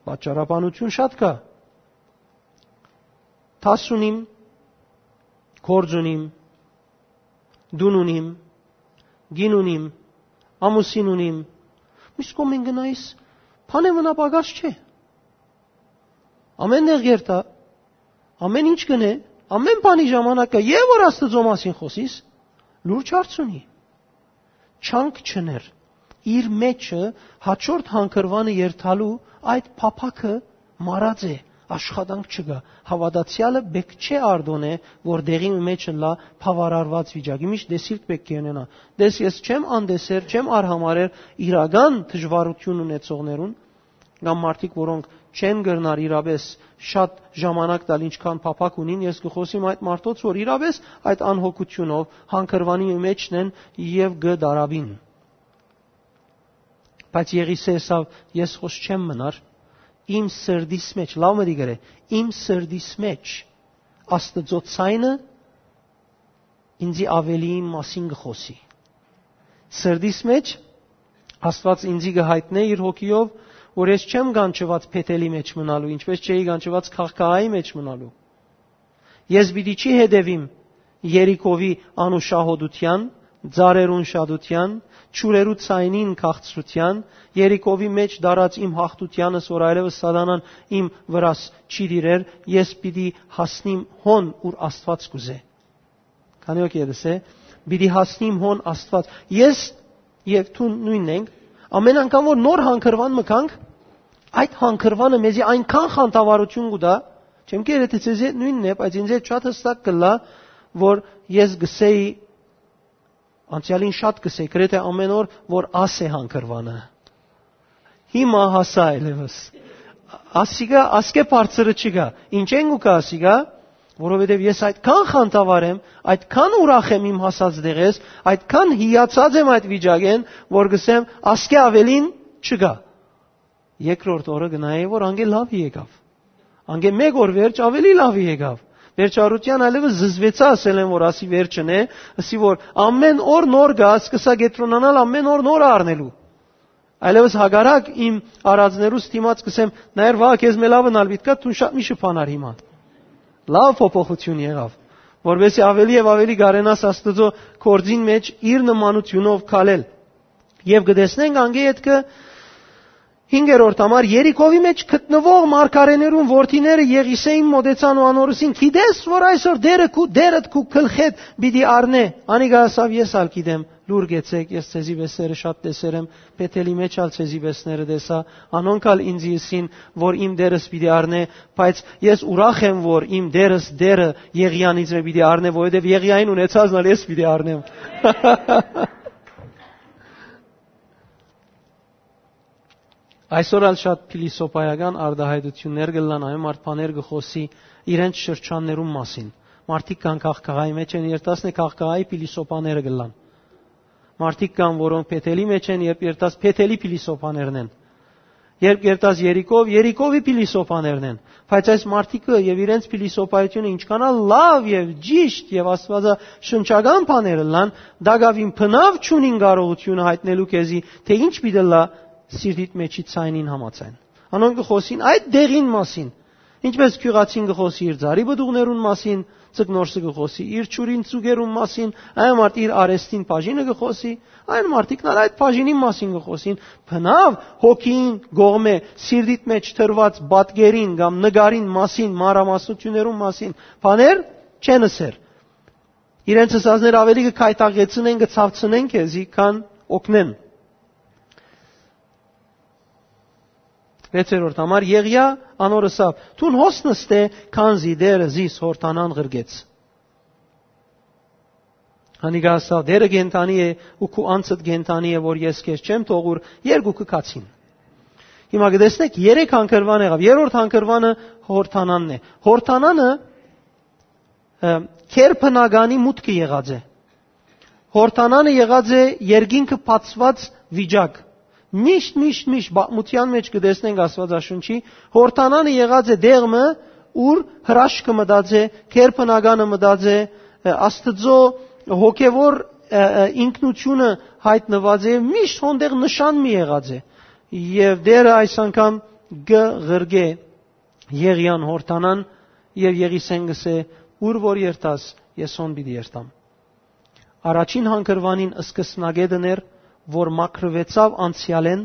պատճառաբանութիւն շատ կայ։ Դաս ունիմ, գործ ունիմ, տուն ունիմ, կին ունիմ, ամուսին ունիմ, միշտ կողմէն գնայիս, բան է մնա պակաս չէ։ Ամեն տեղ երթայ, ամեն ինչ կ'ընէ, ամեն բանի ժամանակ կայ, եւ որ Աստուծոյ մասին խօսիս, լուրջ հարց ունի։ Չանք չներ։ Իր մէջը հաջորդ հանգրուանը երթալու այդ փափաքը մարած է, աշխատանք չկայ։ Հաւատացեալը պէտք չէ արտոնէ, որ տեղի մը մէջ ըլլայ բաւարարուած վիճակի։ Միշտ տեսիլք պէտք է ունենայ։ Տես, ես չեմ անտեսեր, չեմ արհամարհեր իրական դժուարութիւն ունեցողներուն, կամ մարդիկ, որոնք չեն կրնար իրապէս շատ ժամանակ տալ, ինչքան փափաք ունին, ես կը խօսիմ այդ մարդոց, որ իրապէս այդ անհոգութիւնով հանգրուանի մէջն են եւ կը դարապին։ Բայց Եղիսէ ըսաւ. «Ես խօս չեմ մնար, իմ սրտիս մէջ», լաւ մտի գրե, «իմ սրտիս մէջ Աստուծոյ ցայնը ինծի աւելի իմ մասին կը խօսի»։ Սրտիս մէջ Աստուած ինծի կը յայտնէ իր հոգիով, որ ես չեմ կանչուած Բեթելի մէջ մնալու, ինչպէս չէի կանչուած քաղաքային մէջ մնալու։ Ես պիտի չի հետեւիմ Երիքովի անուշահոտութեան, ծառերուն շատութեան, ջուրերու ձայնին քաղցրութեան, Երիքովի մէջ դարած իմ յաղթութեանս, որ այլեւս սատանան իմ վրաս չի տիրեր, ես պիտի հասնիմ հոն, ուր Աստուած կ'ուզէ։ Քանի որ ետս է, պիտի հասնիմ հոն Աստուած։ Ես եւ դու նոյնն ենք, ամեն անգամ որ նոր հանգրուան մը գանք, այդ հանգրուանը մեզի այնքան խանդավառություն կու տայ, չեմ կերե թէ ձեզի հետ նոյնն է, բայց ինձ հետ շատ հստակ կ'ըլլայ, որ ես կ'ըսէի, անցեալին շատ կ'ըսէի, գրեթէ ամեն օր, որ աս է հանգրուանը։ Հիմա հասայ այլեւս։ Ասիկա, ասկէ բարձրը չկայ։ Ինչե՞ն կու գայ ասիկա, որովհետեւ ես այդքան խանդավառ եմ, այդքան ուրախ եմ իմ հասած տեղէս, այդքան հիացած եմ այդ վիճակէն, որ կ'ըսեմ, ասկէ աւելին չկայ։ Երկրորդ օրը կը նայէի, որ անկէ լաւը եկաւ։ Անկէ մէկ օր վերջ աւելի լաւը եկաւ։ Վերջարութեան այլեւս զզվեցայ, ասել են, որ ասի վերջն է, ասի, որ ամեն օր նոր գայ, սկսայ կեդրոնանալ, ամեն օր նոր առնելու։ Այլեւս հակառակ իմ արածներուս դիմաց կ'ըսեմ, նայեր, վաղը քեզ մէ լաւն ալ պիտի գայ, դուն շատ միշտ բանար հիմա։ Լաւ փոփոխութիւն եղաւ, որովհետեւ աւելի եւ աւելի կարենաս Աստուծոյ գործին մէջ իր նմանութիւնով քալել։ Եւ կը տեսնենք անկէ ետքը հինգերորդ համար, Երիքովի մէջ գտնուող մարգարէներուն որդիները Եղիսէին մօտեցան ու անոր ըսին. «Գիտես, որ այսօր Տերը քու, Տերդ քու գլխէդ պիտի առնէ»։ Անիկա ասաւ. «Ես ալ գիտեմ, լուր գեցեք, ես ձեզի պէսերը շատ տեսեր եմ, Բեթելի մէջ ալ ձեզի պէսները տեսայ, անոնք ալ ինծի ըսին, որ իմ Տերս պիտի առնէ, բայց ես ուրախ եմ, որ իմ Տերս Տերը Եղիան ինձ մէ պիտի առնէ, որովհետեւ Եղիային ունեցածն ալ ես պիտի առնեմ»։ Այսօր ալ շատ փիլիսոփայական արտահայտություններ կ'ըլլան, այն մարդ բաներ կը խօսի իրենց շրջաններուն մասին։ Մարդիկ կան քաղաքային մէջ են, երթասն է քաղաքայի փիլիսոփաները կ'ըլլան։ Մարդիկ կան, որոնք Բեթելի մէջ են, երբ երթաս Բեթելի փիլիսոփաներն են։ Երբ երթաս Երիքով, Երիքովի փիլիսոփաներն են։ Բայց այս մարդիկը եւ իրենց փիլիսոփայությունը ինչքան ալ լաւ եւ ճիշտ եւ աստվածաշնչական բաներ ըլլան, դակաւին բնաւ չունին կարողությունը յայտնելու քեզի, թէ ինչ պիտի ըլլայ սիրտիդ մէջի ձայնին համաձայն։ Անոնք կը խօսին այդ դեղին մասին, ինչպէս գիւղացին կը խօսի իր ծառի պտուղներուն մասին, ձկնորսը կը խօսի իր ջուրին ծուկերուն մասին, այն մարդ իր արեստին բաժինը կը խօսի, այն մարդիկն ալ այդ բաժինին մասին կը խօսին, բնաւ հոգին կողմէ սիրտիդ մէջ դրուած պատկերին կամ նկարին մասին, մանրամասնություններուն մասին բաներ չեն ըսեր։ Իրենց ըսածները աւելի կը քայթակեցնեն, կը ցաւցնեն քեզի, քան օգնեն։ Վեցերորդ համար, Եղիա անոր ըսաւ. «Դուն հոս նստէ, քանզի Տերը զիս Յորդանան ղրկեց»։ Անիկա ըսաւ. «Տերը կենդանի է ու քու անձդ կենդանի է, որ ես քեզ չեմ թողուր»։ Երկուքը գացին։ Հիմա կը տեսնեք, երեք հանգրուան եղաւ։ Երրորդ հանգրուանը Յորդանանն է։ Յորդանանը, ը, քերբնականի մուտքը եղած է։ Յորդանանը եղած է երկինքը բացուած վիճակ։ Միշտ, միշտ, միշտ պատմութեան մէջ կը տեսնենք Աստուածաշունչի, Յորդանանը եղած է դեղ մը, ուր հրաշքը մտած է, քերբնականը մտած է, ը, Աստուծոյ հոգեւոր, ը, ը, ինքնությունը յայտնուած է, միշտ հոնդեղ նշան մի եղած է։ Եւ Տերը այս անգամ կը ղրկէ Եղիան Յորդանան, եւ Եղիսէն կ'ըսէ. «Ուր որ երթաս, ես հոն պիտի երթամ»։ Առաջին հանգրուանին սկսնակետն էր, որ մաքրուեցաւ անցեալէն,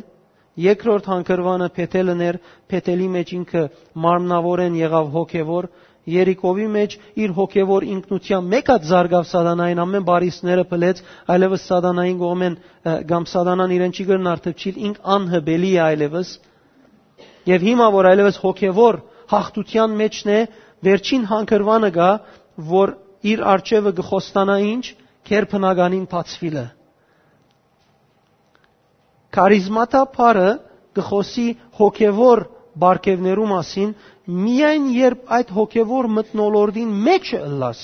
երկրորդ հանգրուանը Բեթելն էր, Բեթելի մէջ ինքը մարմնաւորէն եղաւ հոգեւոր, Երիքովի մէջ իր հոգեւոր ինքնութեան մէկ հատ զարգաւ սատանային, ամէն բարիսները փլեց, այլեւս սատանային կողմէն, ը, կամ սատանան իրեն չի կրնար թփչիլ, ինք անհպելի է այլեւս։ Եւ հիմա, որ այլեւս հոգեւոր յաղթութեան մէջն է, վերջին հանգրուանը կայ, որ իր առջեւը կը խոստանայ ինչ, քերբնականին բացուիլը։ Քարիզմատա բառը կը խօսի հոգեւոր պարգեւներու մասին, միայն երբ այդ հոգեւոր մթնոլորտին մէջը ըլլաս,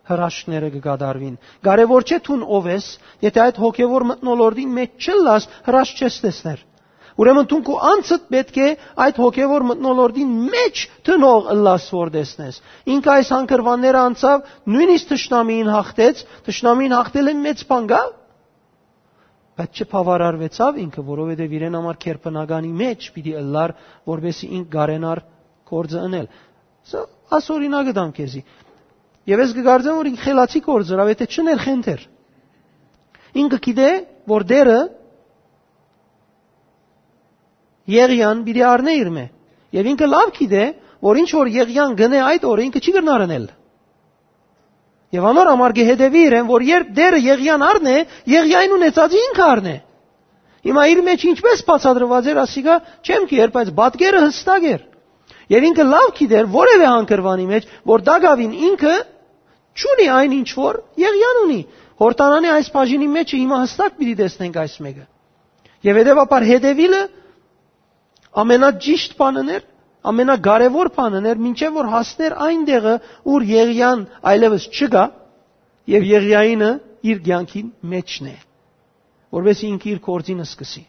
հրաշքները կը կատարուին։ Կարեւոր չէ դուն ով ես, եթէ այդ հոգեւոր մթնոլորտին մէջ չըլլաս, հրաշք չես տեսներ։ Ուրեմն դուն քու անձդ պէտք է այդ հոգեւոր մթնոլորտին մէջ դնող ըլլաս, որ տեսնես։ Ինքը այս հանգրուանները անցաւ, նոյնիսկ թշնամիին յաղթեց, թշնամիին յաղթելէն մեծ բան կայ։ Բայց չբաւարարուեցաւ ինքը, որովհետեւ իրեն համար քերբնականի մէջ պիտի ըլլար, որպեսզի ինք կարենար գործը ընել։ Սա աս օրինակը տամ քեզի։ Եւ ես կկարծեմ, որ ինք խելացի գործ ըրաւ, եթե չըներ խենթեր։ Ինքը գիտէ, որ Տէրը Եղիան պիտի առնէ իր մէ։ Եւ ինքը լաւ գիտէ, որ ինչ որ Եղիան գնէ այդ օրը, ինքը չի կրնար ընել։ Եւ անոր համար կը հետեւի իրեն, որ երբ Տէրը Եղիան առնէ, Եղիային ունեցածը ինքը առնէ։ Հիմա իր մեջ ինչպես բացատրուած էր, ասիկա չեմ գիտեր, բայց պատկերը յստակ էր։ Եւ ինքը լաւ գիտեր որեւէ հանգրուանի մեջ, որ տակաւին ինքը չունի այն ինչ որ Եղիան ունի։ Յորդանանի այս բաժինի մեջ հիմա յստակ պիտի տեսնենք այս մէկը։ Եւ հետեւաբար հետեւիլը ամենաճիշտ բանն էր, ամենակարեւոր բանն էր, մինչեւ որ հասներ այն տեղը, ուր Եղիան այլեւս չկայ, եւ Եղիայինը իր կեանքին մէջն է, որովհետեւ ինքը իր գործին սկսի։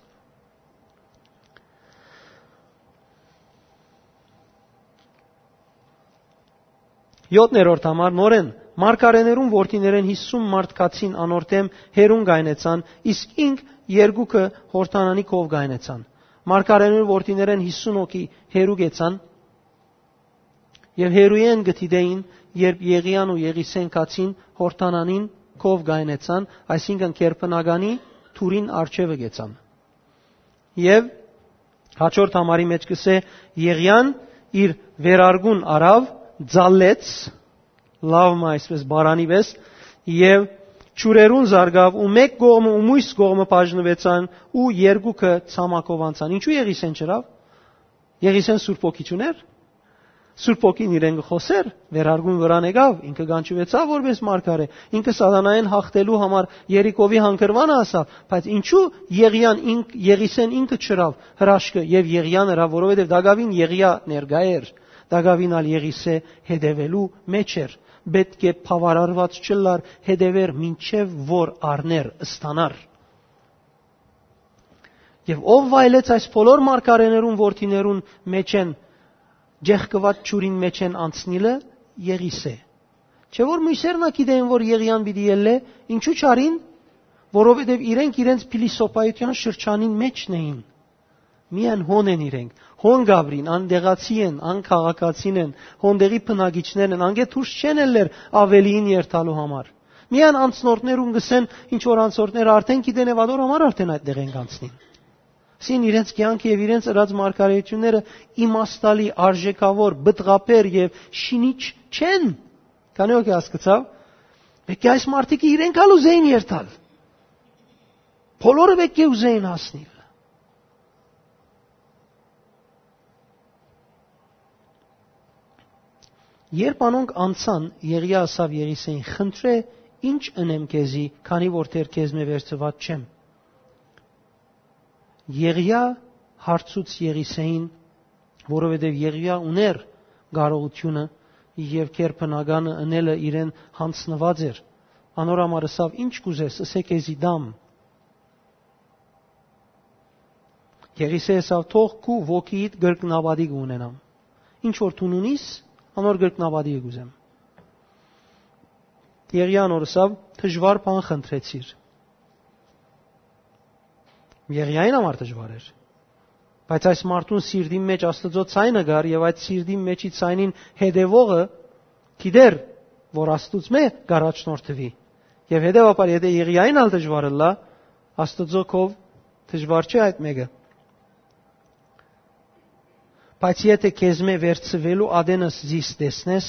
Յոթերորդ համար, նորէն, մարգարէներուն որդիներէն յիսուն մարդ գացին անոր դէմ, հեռուն կայնեցան, իսկ ինք երկուքը Յորդանանի քով կայնեցան։ Մարգարէներուն որդիներէն յիսուն հոգի հեռու գեցան, եւ հեռուէն կը դիտէին, երբ Եղիան ու Եղիսեն գացին Յորդանանին քով կայնեցան, այսինքն՝ քերբնականի թուրին առջեւը գեցան։ Եւ հաջորդ համարի մեջ կսէ, Եղիան իր վերարկուն առաւ, ձալեց, լաւ մը այսպես բարանի վես, եւ ջուրերուն զարգաւ ու մէկ կողմը ու մյուս կողմը բաժնուեցան ու երկուքը ցամաքով անցան։ Ինչու Եղիսեն չըրաւ։ Եղիսեն Սուրբ Հոգի չունէր։ Սուրբ Հոգին իրեն կը խօսէր, վերարկուն վրան եկաւ, ինքը կանչուեցաւ որպես մարգարէ, ինքը սատանային հաղթելու համար Երիքովի հանգրվանը ասաւ, բայց ինչու Եղիան ինք, Եղիսեն ինքը չըրաւ հրաշքը եւ Եղիան ըրաւ, որովհետեւ տակաւին Եղիա ներկայ էր, տակաւին ալ Եղիսե հետեւելու մեջ էր, պետք է բաւարարուած չըլլար, հետեւեր մինչեւ որ առներ, ստանար։ Եւ ով վայելեց այս բոլոր մարգարէներուն որդիներուն մէջէն, ջեղկուած ջուրին մէջէն անցնիլը, Եղիսե։ Չէ՞ որ մյուսերն ա գիտեին, որ Եղիան պիտի ելլէ, ինչու չարին, որովհետեւ իրենք իրենց փիլիսոփայութեան շրջանին մէջն էին։ Միայն հոն են իրենք, հոն գաբրին, անտեղացի են, անքաղաքացին են, հոն տեղի բնակիչներ են, անկէ դուրս չեն ելլեր ավելիին երթալու համար։ Միայն անցնորդներուն կսեն, ինչ որ անցորդները արդեն գիտեն եւ ադոր համար արդեն այդ տեղ են կանցնին։ Սին իրենց կեանքը եւ իրենց ըրած մարգարեությունները իմաստալի, արժեքավոր, բտղաբեր եւ շինիչ չեն։ Քանի՞ հոգի հասկցաւ։ Մեկի այս մարդիկը իրենք ալ ուզեին երթալ։ Բոլորը մեկի ուզեին հասնիլ։ Երբ անոնք անցան, Եղիա ասաւ Եղիսեին. «Խնդրէ, ի՞նչ ընեմ քեզի, քանի որ դեռ քեզմէ վերցուած չեմ»։ Եղիա հարցուց Եղիսեին, որովհետև Եղիա ունէր կարողությունը եւ քերբնականը ընելը իրեն յանձնուած էր։ Անոր համար ըսաւ. «Ի՞նչ կ'ուզես, ըսէ քեզի տամ»։ Եղիսէ ըսաւ. «Թող քու ոգիիդ կրկնապատի կ'ունենամ։ Ինչ որ դուն ունիս, անոր կրկնապատի կ'ուզեմ»։ Եղիան անոր ըսաւ. «Դժուար բան խնդրեցիր»։ Եղիային համար դժուար էր։ Բայց այս մարդուն սիրտին մեջ Աստուծոյ ցայնը կար, եւ այդ սիրտին մեջի ցայնին հետեւողը գիտեր, որ Աստուծմէ կ'առաջնորդուի։ Եւ հետեւաբար, եթե Եղիային ալ դժուար ըլլայ, Աստուծոյ քով դժուար չէ այդ մէկը։ «Բայց եթե քեզմէ վերցուելու ատենս զիս տեսնես,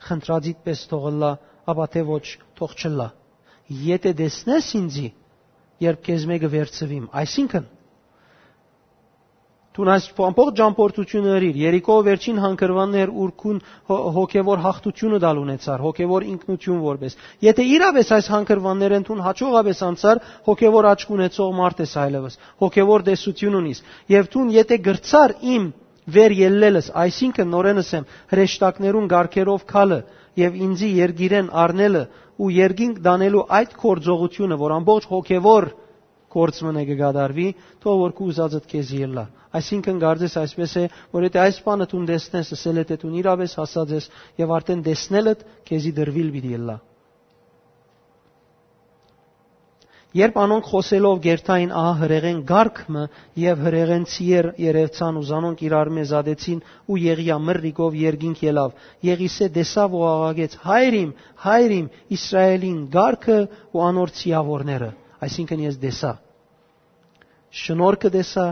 խնդրածիդ պէս թող ըլլայ, ապա թէ ոչ, թող չըլլայ։ Եթե տեսնես ինծի, երբ քեզմէ կը վերցուիմ», այսինքն, դուն այս ամբողջ ճամբորդությունը ըրիր, Երիքոյ վերջին հանգրուաններ, ուր քուն հո-, հոգեվոր յաղթությունը տալ ունեցար, հոգեվոր ինքնություն որպես։ Եթե իրապէս այս հանգրուաններէն դուն հաջողապէս անցար, հոգեվոր աչք ունեցող մարդ ես այլևս, հոգեվոր տեսություն ունիս, եւ դուն եթե կրցար իմ վեր ելլելս, այսինքն, նորէն ըսեմ, հրեշտակներուն կարգերով գալը եւ ինծի երկիրեն առնելը ու երկինք տանելու այդ գործողությունը, որ ամբողջ հոգեվոր գործ մը կը կատարուի, թող որ քու ուզածդ քեզի ըլլայ։ Այսինքն, կարծես այսպես է, որ եթե այս բանը դուն տեսնես, ըսել է, թէ դուն իրապէս հասած ես եւ արդեն տեսնելդ քեզի տրուիլ պիտի ըլլայ։ Երբ անոնք խօսելով կերթային ահա հրեղեն կարգ մը, եւ հրեղեն ցիեր երեւցան ու զանոնք իրարմէ զատեցին, ու Եղիա մրրիկով երկինք ելաւ։ Եղիսէ տեսաւ ու աղաղեց. «Հայր իմ, հայր իմ, Իսրայէլին կարգը ու անոր ցիաւորները»։ Այսինքն՝ ես տեսայ, շնորհքը տեսայ,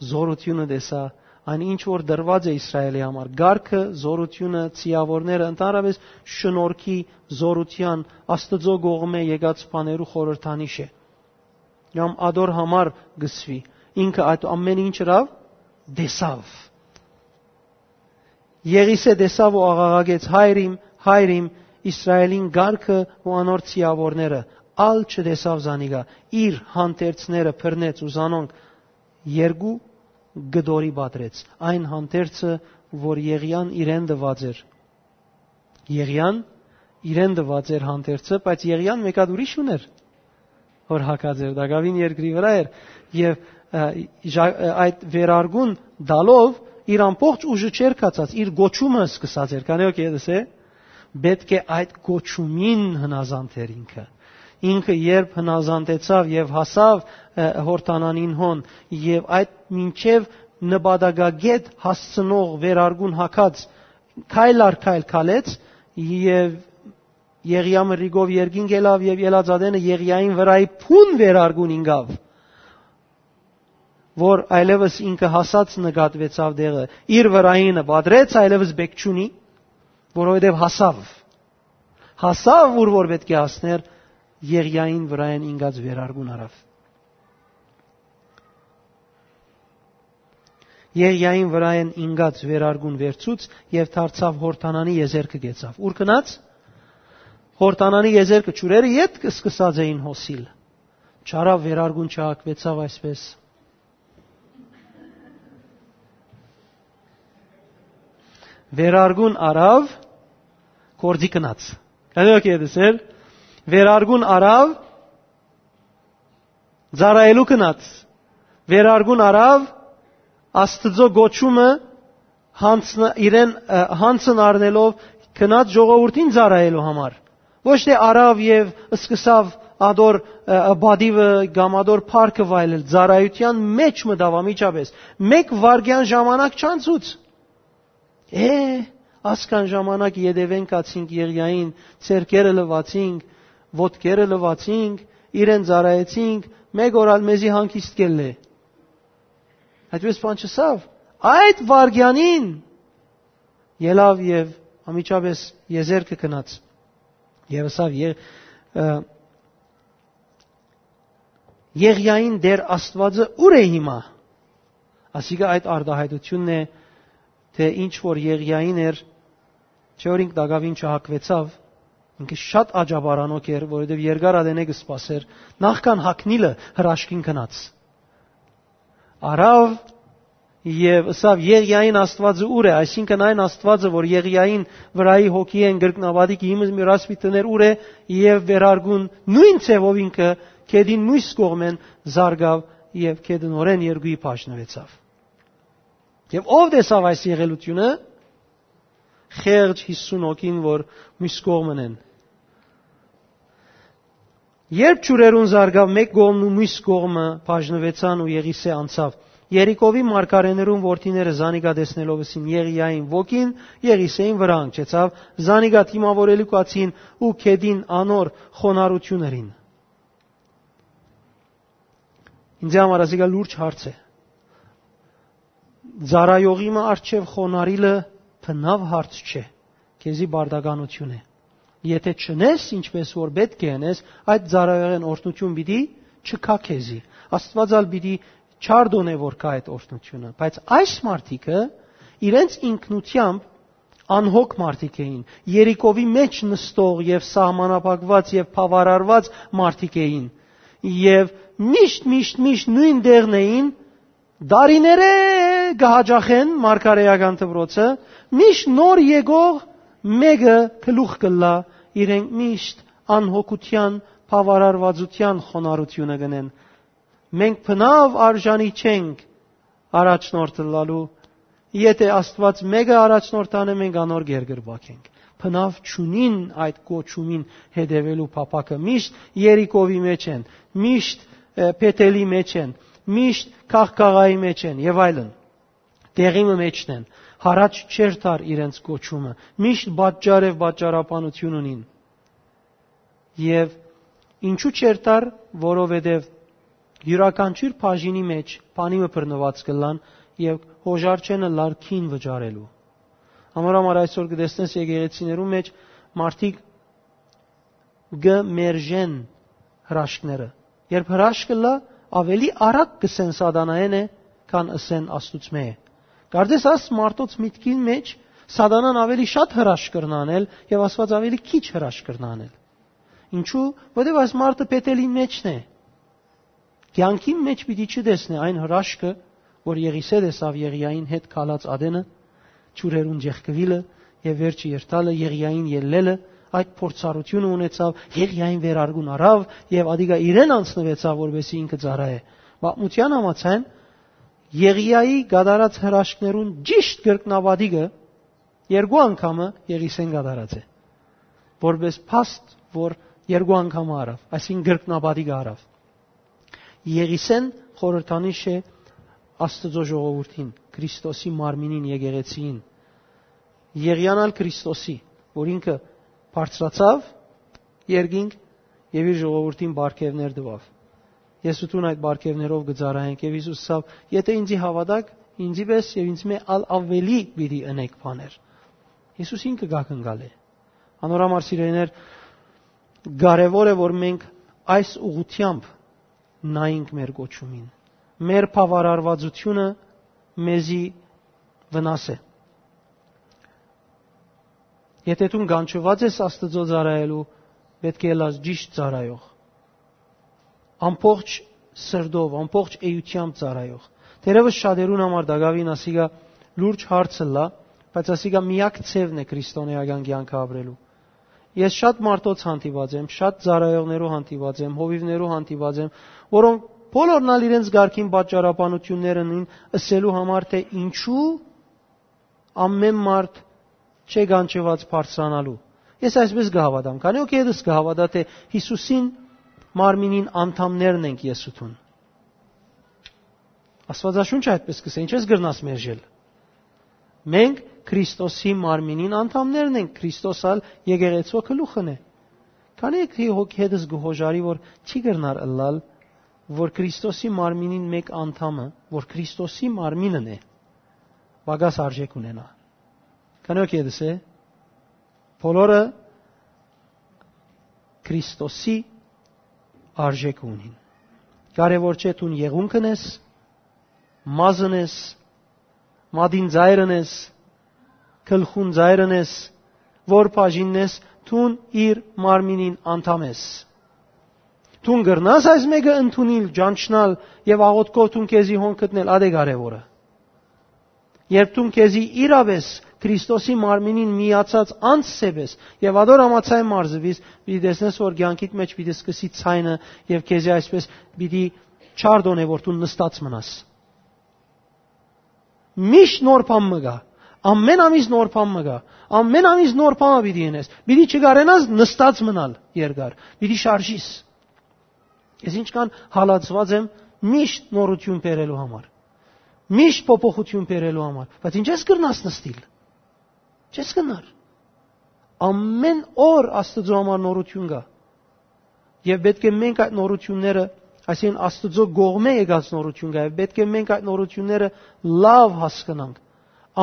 զօրութիւնը տեսայ, այն ինչ որ դրուած է Իսրայէլի համար, կարգը, զօրութիւնը, ցիաւորները, ընդհանրապէս շնորհքի, զօրութեան, Աստուծոյ կողմէ եկած բաներու խորհրդանիշ է։ Կամ ատոր համար կ'ըսուի, ինքը այդ ամէնը ինչ ըրաւ, տեսաւ։ Եղիսէ տեսաւ ու աղաղակեց. «Հայր իմ, հայր իմ, Իսրայէլին կարգը ու անոր ցիաւորները»։ Ալ չտեսաւ զանիկա, իր հանդերձները բռնեց ու զանոնք երկու կտորի պատռեց, այն հանդերձը, որ Եղիան իրեն տուած էր։ Եղիան իրեն տուած էր հանդերձը, բայց Եղիան մէկ հատ ուրիշ ունէր, որ հագած էր, տակաւին երկրի վրայ էր, եւ, ը, ժա-, ը, այդ վերարկուն տալով իր ամբողջ ուժը չէր կացած, իր կոչումը սկսած էր, քանի որ կեդս է, պետք է այդ կոչումին հնազանդ էր ինքը։ Ինքը երբ հնազանդեցաւ եւ հասաւ, ը, Յորդանանին հոն, եւ այդ մինչեւ նպատակագետ հասցնող վերարկուն հագած, քայլ առ քայլ քալեց, եւ Եղիա մրրիկով երկինք ելաւ, եւ ելած ատենը Եղիային վրայի փուն վերարկուն ինկաւ, որ այլեւս ինքը հասած նկատուեցաւ տեղը, իր վրայինը պատռեց, այլեւս բեք չունի, որովհետեւ հասաւ, հասաւ, ուր որ պետք է հասներ, Եղիային վրայէն ինկած վերարկուն առաւ։ Եղիային վրայէն ինկած վերարկուն վերցուց եւ դարձաւ Յորդանանի եզերքը կեցաւ։ Ո՞ւր գնաց։ Յորդանանի եզերքը, ջուրերը ետք սկսած էին հոսիլ։ Չարաւ, վերարկուն չհակվեցաւ այսպես։ Վերարկուն առաւ, գործի գնաց։ Կանի ո՞ք ետս էր։ Վերարկուն առաւ, ծառայելու գնաց։ Վերարկուն առաւ, Աստուծոյ կոչումը, յանցն-, իրեն, ը, յանցն առնելով, գնաց ժողովուրդին ծառայելու համար։ Ոչ թէ առաւ եւ սկսաւ ատոր, ը, ը, պատիւը կամ ատոր փառքը վայելել, ծառայութեան մէջ մտաւ անմիջապէս։ Մէկ վայրկեան ժամանակ չանցուց։ Է, ասկան ժամանակ ետեւէն գացինք Եղիային, ձեռքերը լուացինք, ոտքերը լուացինք, իրեն ծառայեցինք, մէկ օր ալ մեզի հանգիստ կ'ելլէ։ Այդպես բան չըսաւ։ Այդ վայրկեանին ելաւ եւ անմիջապէս եզերքը գնաց։ Եւ ըսաւ. «Ե-, ը, Եղիային Տէր Աստուածը ո՞ւր է հիմա»։ Ասիկա այդ արտահայտությունն է, թէ ինչ որ Եղիային էր, չէ՞ որ ինք տակաւին չհակվեցաւ, ինքը շատ աջաբարանոք էր, որովհետեւ երկար ատենէ կը սպասէր, նախքան հագնիլը հրաշքին գնաց։ Առաւ եւ ըսաւ. «Եղիային Աստուածը ո՞ւր է»։ Այսինքն՝ այն Աստուածը, որ Եղիային վրայի հոգիէն կրկնապատիկ իմը մուրաս պիտի դներ, ո՞ւր է, եւ վերարկուն նոյն ձեւով ինքը գետին միւս կողմէն զարկաւ եւ գետը նորէն երկուի բաժնուեցաւ։ Եւ ո՞վ տեսաւ այս եղելութիւնը, խեղճ յիսուն հոգին, որ միւս կողմն են։ Երբ ջուրերուն զարկաւ, մէկ կողմն ու միւս կողմը բաժնուեցան ու Եղիսէ անցաւ։ Երիքովի մարգարէներուն որդիները զանիկա տեսնելով ըսին Եղիային. «Ոգին Եղիսէին վրայ հանգչեցաւ, զանիկա դիմաւորելու գացին ու գետին անոր խոնարհութիւն ըրին»։ Ինձ համար ասիկա լուրջ հարց է։ Ծառայողի մը առջեւ խոնարհիլը բնաւ հարց չէ, քեզի պարտականութիւն է։ Եթէ չընես, ինչպես որ պէտք է ընես, այդ ծառայողէն օրհնութիւն պիտի չգայ քեզի։ Աստուած ալ պիտի չարդոնէ, որ գայ այդ օրհնութիւնը։ Բայց այս մարդիկը իրենց ինքնութեամբ անհոգ մարդիկ էին, Երիքովի մէջ նստող եւ սահմանափակուած եւ բաւարարուած մարդիկ էին, եւ միշտ, միշտ, միշտ նոյն տեղն էին, տարիներէ կը յաճախեն մարգարէական դպրոցը, միշտ նոր եկող մէկը գլուխ կ'ըլլայ, իրենք միշտ անհոգութեան, բաւարարուածութեան խոնարհութիւնը կ'ընեն։ Մենք բնաւ արժանի չենք առաջնորդ ըլլալու, եթէ Աստուած մէկը առաջնորդ տանէ, մենք անոր գերկրպագ ենք։ բնաւ չունին այդ կոչումին հետեւելու փափաքը։ Միշտ Երիքովի մէջ են, միշտ, ը, Փեթելի մէջ են, միշտ Քաղքաղայի մէջ են եւ այլն։ Տեղի մը մէջն են, յառաջ չ'երթար իրենց կոչումը, միշտ պատճառ եւ պատճառաբանություն ունին։ Եւ ինչու՞ չ'երթար, որովհետեւ իւրաքանչիւր բաժինի մէջ բանի մը բռնուած կ'ըլլան եւ հոժար չեն ըլլար գին վճարելու։ Անոր համար այսօր կը տեսնես եկեղեցիներու մէջ մարդիկ կը մերժեն հրաշքները։ Երբ հրաշքը լա, ավելի արագ կ'ըսեն սատանայէն է, քան ըսեն Աստուծմէ է։ Կարծես աս մարդոց միտքին մէջ սատանան ավելի շատ հրաշք կրնա անել եւ Աստուած ավելի քիչ հրաշք կրնա անել։ Ինչու՞, որովհետեւ այս մարդը Փեթելի մէջն է։ Կեանքին մէջ պիտի չտեսնէ այն հրաշքը, որ Եղիսէ տեսաւ Եղիային հետ քալած ատենը, ջուրերուն ջեղկուիլը եւ վերջը երթալը, Եղիային ելլելը, այդ փորձառութիւնը ունեցաւ, Եղիային վերարկուն առաւ եւ ադիկա իրեն անցնուեցաւ, որպեսզի ինքը ծառայէ։ Պատմութեան համաձայն, Եղիայի կատարած հրաշքներուն ճիշտ կրկնապատիկը երկու անգամը Եղիսէն կատարած է, որպես փաստ, որ երկու անգամը առաւ, այսինքն կրկնապատիկը առաւ։ Եղիսէն խորհրդանիշ է Աստուծոյ ժողովուրդին, Քրիստոսի մարմինին, եկեղեցիին։ Եղիան ալ Քրիստոսի, որ ինքը բարձրացաւ երկինք եւ իր ժողովուրդին պարգեւներ տուաւ։ Ես ու դուն այդ պարգեւներով կը ծառայենք, եւ Յիսուս ըսաւ. «Եթէ ինծի հաւատաք, ինծի պէս եւ ինձմէ ալ աւելի պիտի ընէք բաներ»։ Յիսուս ինքը կ'ակնկալէ։ Անոր համար, սիրելիներ, կարեւոր է, որ մենք այս ուղղութեամբ նայենք մեր կոչումին։ Մեր բաւարարվածությունը մեզի վնաս է։ Եթէ դուն կանչուած ես Աստուծոյ ծառայելու, պէտք է ըլլաս ճիշտ ծառայող, ամբողջ սրտով, ամբողջ էությամբ ծառայող։ Թերեւս շատերուն համար տակաւին ասիկա լուրջ հարց ըլլայ, բայց ասիկա միակ ձեւն է քրիստոնէական կեանքը ապրելու։ Ես շատ մարդոց հանդիպած եմ, շատ ծառայողներու հանդիպած եմ, հովիւներու հանդիպած եմ, որոնք բոլորն ալ իրենց կարգին պատճառաբանություններ ունին ըսելու համար, թէ ինչու ամեն մարդ չէ կանչուած բարձրանալու։ Ես այսպես կը հաւատամ, քանի որ ետս կը հաւատա, թէ Յիսուսին մարմինին անդամներն ենք ես ու դուն։ Աստուածաշունչը այդպես կ'ըսէ, ինչպես կրնաս մերժել։ Մենք Քրիստոսի մարմինին անդամներն ենք, Քրիստոս ալ եկեղեցու գլուխն է։ Քանի՞ եք թի հոգի հետս կը հոժարի, որ չի կրնար ըլլալ, որ Քրիստոսի մարմինին մէկ անդամը, որ Քրիստոսի մարմինն է, պակաս արժեք ունենայ։ Քանի՞ եք ետս է, բոլորը Քրիստոսի արժեք ունին։ Կարեւոր չէ դուն եղունգն ես, մազն ես, մատին ծայրն ես, գլխուն ծայրն ես, որ բաժինն ես, դուն իր մարմինին անդամ ես։ Դուն կրնաս այս մէկը ընդունիլ, ճանչնալ եւ աղօթքով դուն քեզի հոն գտնել, ատե կարեւորը։ Երբ դուն քեզի իրապէս Քրիստոսի մարմինին միացած անձ սեպես եւ ադոր համաձայն մարզվիս, պիտի տեսնես, որ կեանքիդ մէջ պիտի սկսի ցայնը եւ քեզի այսպես պիտի չարդոնե, որ դու նստած մնաս։ Միշտ նոր բան մը կայ, ամեն ամիս նոր բան մը կայ, ամեն ամիս նոր բան մը պիտի ընես, պիտի չկարենաս նստած մնալ երկար, պիտի շարժիս։ Ես ինչքան հալածված եմ միշտ նորություն բերելու համար, միշտ փոփոխություն բերելու համար, բայց ինչ ես կրնաս նստիլ։ Չես կրնար։ Ամեն օր Աստուծոյ համար նորություն կայ։ Եւ պէտք է մենք այդ նորությունները, այսինքն Աստուծոյ կողմէ եկած նորություն կայ, եւ պէտք է մենք այդ նորությունները լաւ հասկնանք։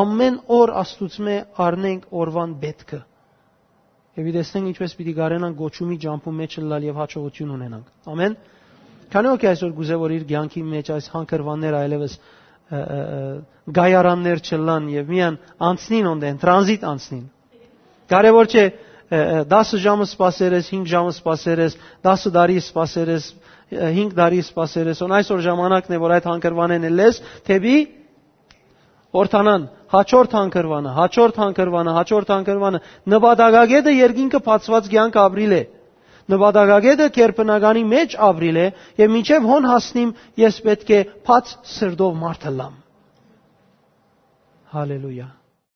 Ամեն օր Աստուծմէ առնենք օրուան պէտքը։ Եւ պիտի տեսնենք ինչպես պիտի կարենանք գոչումի ճամբու մէջ ըլլալ եւ հաջողություն ունենանք։ Ամեն։ Քանի՞ ոգի այսօր կուզէ, որ իր կեանքի մէջ այս հանգրուանները այլեւս, ը, ը, ը, գայարաններ չըլլան եւ միան անցնին, օնտեն տրանզիտ անցնին։ Կարեւոր չէ, ը, ը, դասը ժամը սպասեր ես, հինգ ժամը սպասեր ես, դասը տարի սպասեր ես, ը, հինգ տարի սպասեր ես, on այսօր ժամանակն է, որ այդ հանգրուանեն ելլես դեպի օրթանան, հաջորդ հանգրվանը, հաջորդ հանգրվանը, հաջորդ հանգրվանը, նպատակագետը երկինքը բացված կյանք ապրիլ է։ Նպատակագետը գերբնականի մեջ ապրիլ է, եւ մինչեւ հոն հասնիմ, ես պէտք է բաց սրտով մարդ ըլլամ։ Հալելույա։